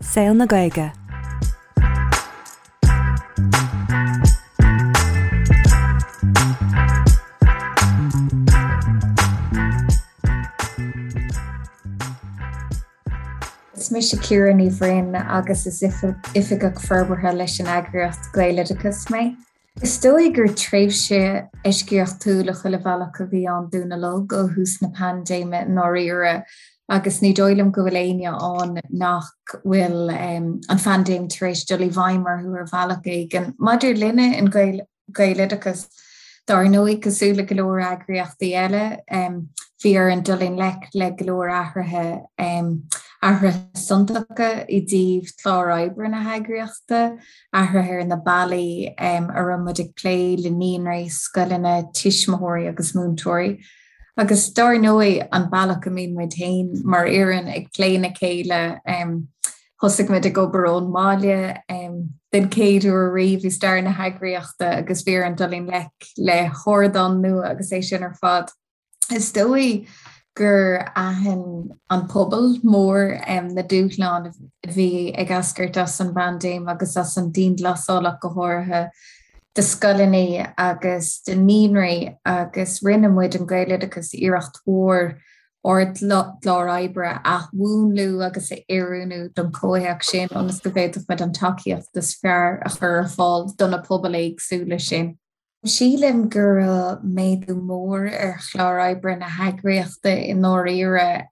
Saol na Gaeilge. Is mise Ciara Ní Bhroin agus is Oifigeach Forbartha leis an eagraíocht Gaeloideachas mé. Is dóigh gur tréimhse eisceachtúil i chuile bhealach a bhí ann dúinn uilig ó thús na paindéime i ndáiríre agus ní dóigh liom go bhfuil éinne ann nach bhfuil an phaindéim tar éis dul i bhfeidhm orthu ar bhealach éigin. Maidir linne in Gaeloideachas, dár ndóigh, cosúil le go leor eagraíochtaí eile, bhí orainn dul i ngleic le go leor athruithe, athruithe suntasacha i dtaobh chlár oibre na heagraíochta, athruithe ar na bealaí a raibh muid ag plé le naíonraí, scoileanna, tuismitheoirí agus múinteoirí. Agus dár ndóigh, an bealach a mbíonn muid féin mar fhoireann ag plé le chéile. Thosaigh muid ag obair ón mbaile den chéad uair riamh i stair na heagraíochta agus bhí orainn dul i ngleic le hardán nua agus é sin ar fad. Is dóigh gur aithin an pobal mór na dúshláin a bhí ag eascairt as an bpaindéim agus as an dianghlasáil ach go háirithe do scoileanna agus do naíonraí agus rinne muid in Gaeloideachas iarracht mhór ár gclár oibre a athmhúnlú agus a oiriúnú don chomhthéacs sin ionas go bhféadfadh muid an tacaíocht is fearr a chur ar fáil do na pobail éagsúla sin. Sílim go raibh méadú mór ar chlár oibre na heagraíochta i ndáiríre.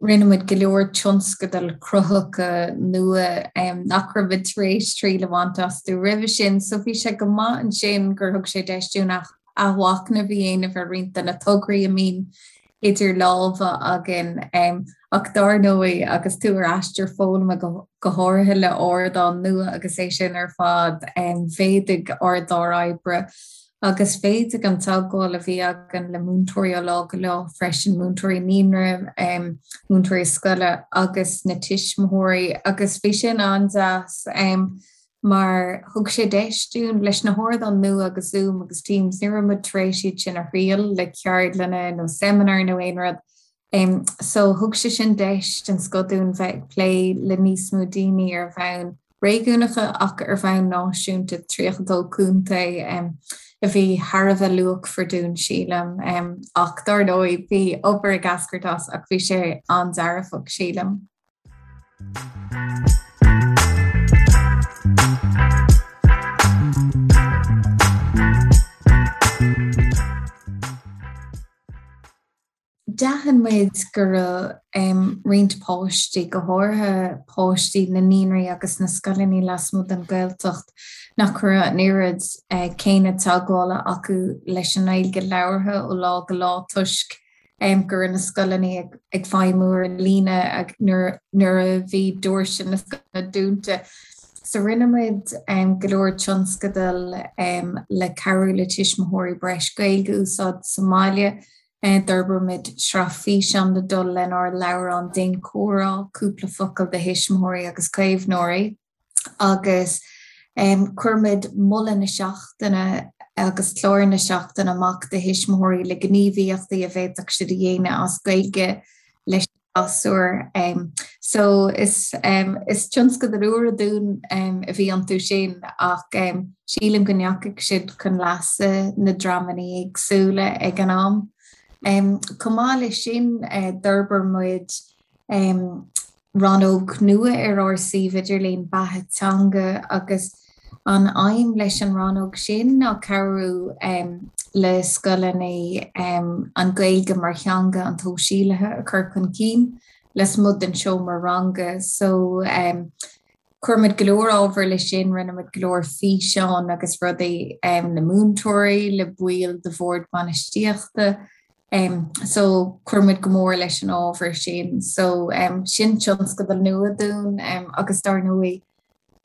Rinne muid go leor tionscadail cruthaitheacha nua nach raibh muid tar éis triail a bhaint astu roimhe sin, so bhí sé go maith ansin gur thug sé deis dúinn athmhachnamh a dhéanamh ar roinnt de na tograí a mbíonn idir lámha againn. Ach dár ndóigh, agus tú ar aistear foghlama, go háirithe le ardán nua agus é sin ar fad, mhéadaigh ár gclár oibre agus mhéadaigh an teagmháil a bhí againn le múinteoirí ó lá go lá freisin, múinteoirí naíonra, múinteoirí scoile agus na tuismitheoirí agus bhí sin an-deas. mar thug sé deis dúinn, leis na hardáin nua agus Zoom agus Teams, ní raibh muid tar éis iad sin a thriail le ceardlanna nó seimineáir nó aon rud. So thug sé sin deis den scoth dúinn bheith ag plé le níos mó daoine ar bhonn réigiúnacha ach ar bhonn náisiúnta, 32 contae, a bhí thar a bheith luachmhar dúinn, sílim. Ach dár ndóigh, bhí obair ag eascairt as ach bhí sé an-dearfach, sílim. D'aithin muid go raibh roinnt páistí, go háirithe páistí na naíonraí agus na scoileanna lasmuigh den Ghaeltacht, nach raibh an oiread céanna teagmhála acu leis an nGaeilge labhartha ó lá go lá toisc go raibh na scoileanna ag feidhmiú ar líne nuair a bhí doirse na scoileanna dúnta. So rinne muid go leor tionscadal le cabhrú le tuismitheoirí breis Gaeilge a úsáid sa mbaile. D'fhorbair muid sraith físeán le dul lenár leabhrán Déan Comhrá, Cúpla Focal do Thuismitheoirí agus Caomhnóirí. agus chuir muid moladh na seachtaine agus clár na seachtaine amach do thuismitheoirí le gníomhaíochtaí a bhféadfadh siad a dhéanamh as Gaeilge leis na gasúir. So is is tionscadail úra dúinn a bhí iontu sin ach sílim go ndeachaigh siad chun leasa na dreamanna éagsúla ag an am. Chomh maith leis sin d'fhorbair muid rannóg nua ar ár suíomh idirlín, Beatha Teanga, agus an aidhm leis an rannóg sin ná cabhrú le scoileanna an Ghaeilge mar theanga an tsóisialaithe a chur chun cinn lasmuigh den seomra ranga. So chuir muid go leor ábhair leis sin, rinne muid go leor físeán agus rudaí le múinteoirí, le baill de bhord bainistíochta, So chuir muid go mór leis an ábhar sin. So sin tionscadal nua dúinn agus dar ndóigh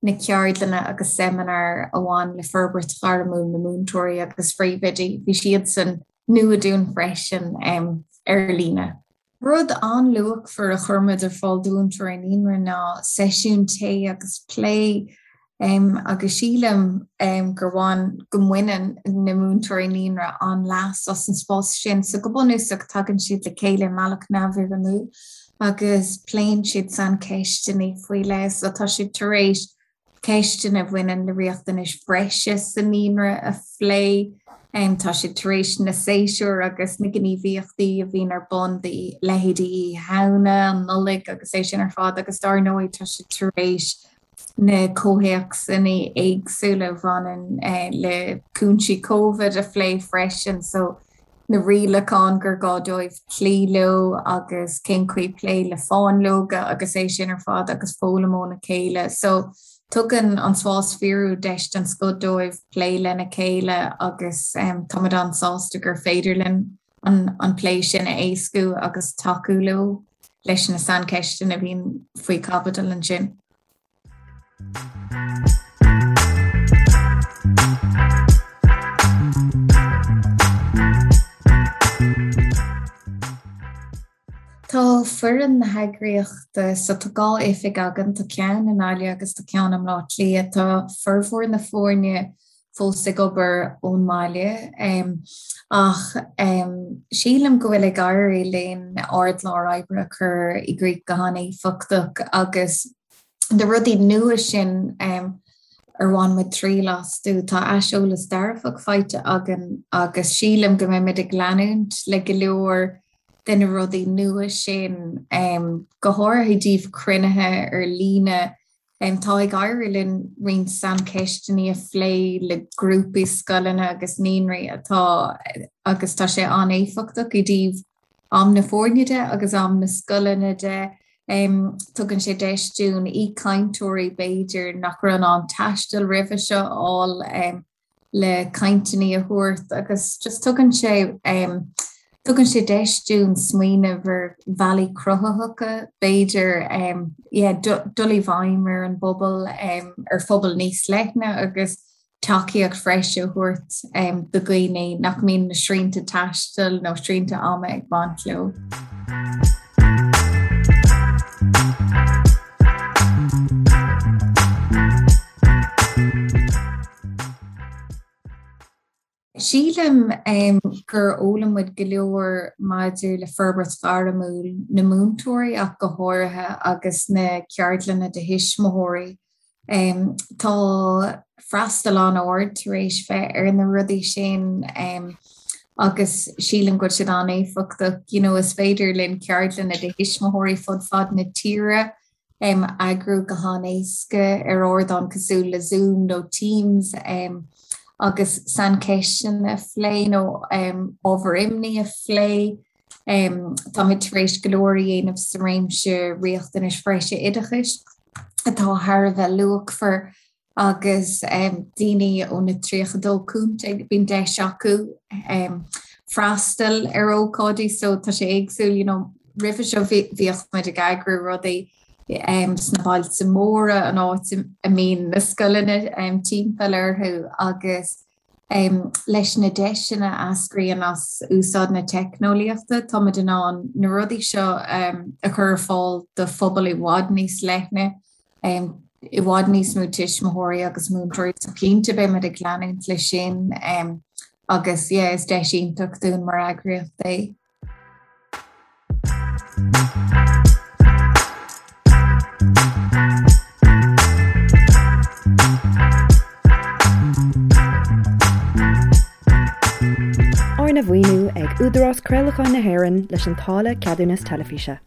na ceardlanna agus seimineáir a bhain le forbairt ghairmiúil na múinteoirí agus phríomhoidí, bhí siadsan nua dúinn freisin ar líne. Rud an-luachmhar a chuir muid ar fáil do mhúinteoirí naíonra ná seisiún tae agus plé Agus sílim gur bhain, go mbaineann na múinteoirí naíonra an-leas as an spás sin. So go bunúsach tagann siad le chéile i mbealach neamhfhoirmiúil. agus pléann siad saincheisteanna faoi leith. So tá siad tar éis ceisteanna a bhaineann le riachtanais bhreise sa naíonra a phlé. Tá siad tar éis na séasúir agus na gníomhaíochtaí a bhíonn ar bun do leithéidí Oíche Shamhna, an Nollaig agus é sin ar fad agus dar ndóigh tá siad tar éis na comhthéacsanna éagsúla a bhaineann le cúinsí Covid a phlé freisin. So na rialacháin gur gá dóibh cloí leo agus cén chaoi plé le fáinleoga agus é sin ar fad agus foghlaim óna chéile. So tugann an spás fíorúil deis den scoth dóibh plé lena chéile agus táimid an-sásta gur féidir linn an an plé sin a éascú agus tacú leo leis na saincheisteanna a bhíonn faoi chaibidil ansin. Tá foireann na heagraíochta, so tá 2 oifig againn, tá ceann i nGaillimh agus tá ceann i mBleá Cliath. Tá formhór na foirne fós ag obair ón mbaile ach sílim go bhfuil ag éirí linn ár gclár oibre a chur i gcrích go han-éifeachtach agus na rudaí nua sin ar bhain muid triail astu, tá aiseolas dearfach faighte againn agus sílim go mbeimid ag leanúint le go leor de na rudaí nua sin, go háirithe i dtaobh cruinnithe ar líne. Tá ag éirí linn roinnt saincheisteanna a phlé le grúpaí scoileanna agus naíonraí atá agus tá sé an-éifeachtach i dtaobh am na foirne de agus am na scoileanna de. Tugann sé deis dúinn aoichainteoirí b'fhéidir nach raibh in ann taisteal roimhe seo a fháil. le cainteanna a thabhairt agus just tugann sé tugann sé deis dúinn smaoineamh ar bhealaí cruthaitheacha b'fhéidir yeah dul i bhfeidhm ar an bpobal ar phobal níos leithne agus tacaíocht bhreise a thabhairt do dhaoine nach mbíonn na srianta taistil nó srianta ama ag baint leo. Sílim gur fhoghlaim muid go leor maidir le forbairt ghairmiúil na múinteoirí ach go háirithe agus na ceardlanna do thuismitheoirí. Tá freastal an-ard tar éis bheith ar na rudaí sin agus sílim go bhfuil siad an-éifeachtach. You know, is féidir linn ceardlanna do thuismitheoirí fud fad na tíre a eagrú go han-éasca ar ardán cosúil le Zoom nó Teams agus saincheisteanna a phlé nó ábhair imní a phlé. Táimid tar éis go leor a dhéanamh sa réimse riachtanais bhreise oideachais atá thar a bheith luachmhar agus daoine ó na 32 contae, bíonn deis acu freastal ar ócáidí so tá sé éagsúil, you know, roimhe seo bhíodh muid ag eagrú rudaí sna bailte móra, an áit a mbíonn na scoileanna timpeall orthu agus leis na deiseanna a eascraíonn as úsáid na teicneolaíochta, táimid in ann na rudaí seo a chur ar fáil do phobal i bhfad níos leithne, i bhfad níos mó tuismitheoirí agus múinteoirí. So cinnte beimid ag leanúint leis sin agus yeah, is deis iontach dúinn mar eagraíocht é. Arna mhaoiniú ag Údarás Craolacháin na hÉireann leis an táille Ceadúnas Teilifíse.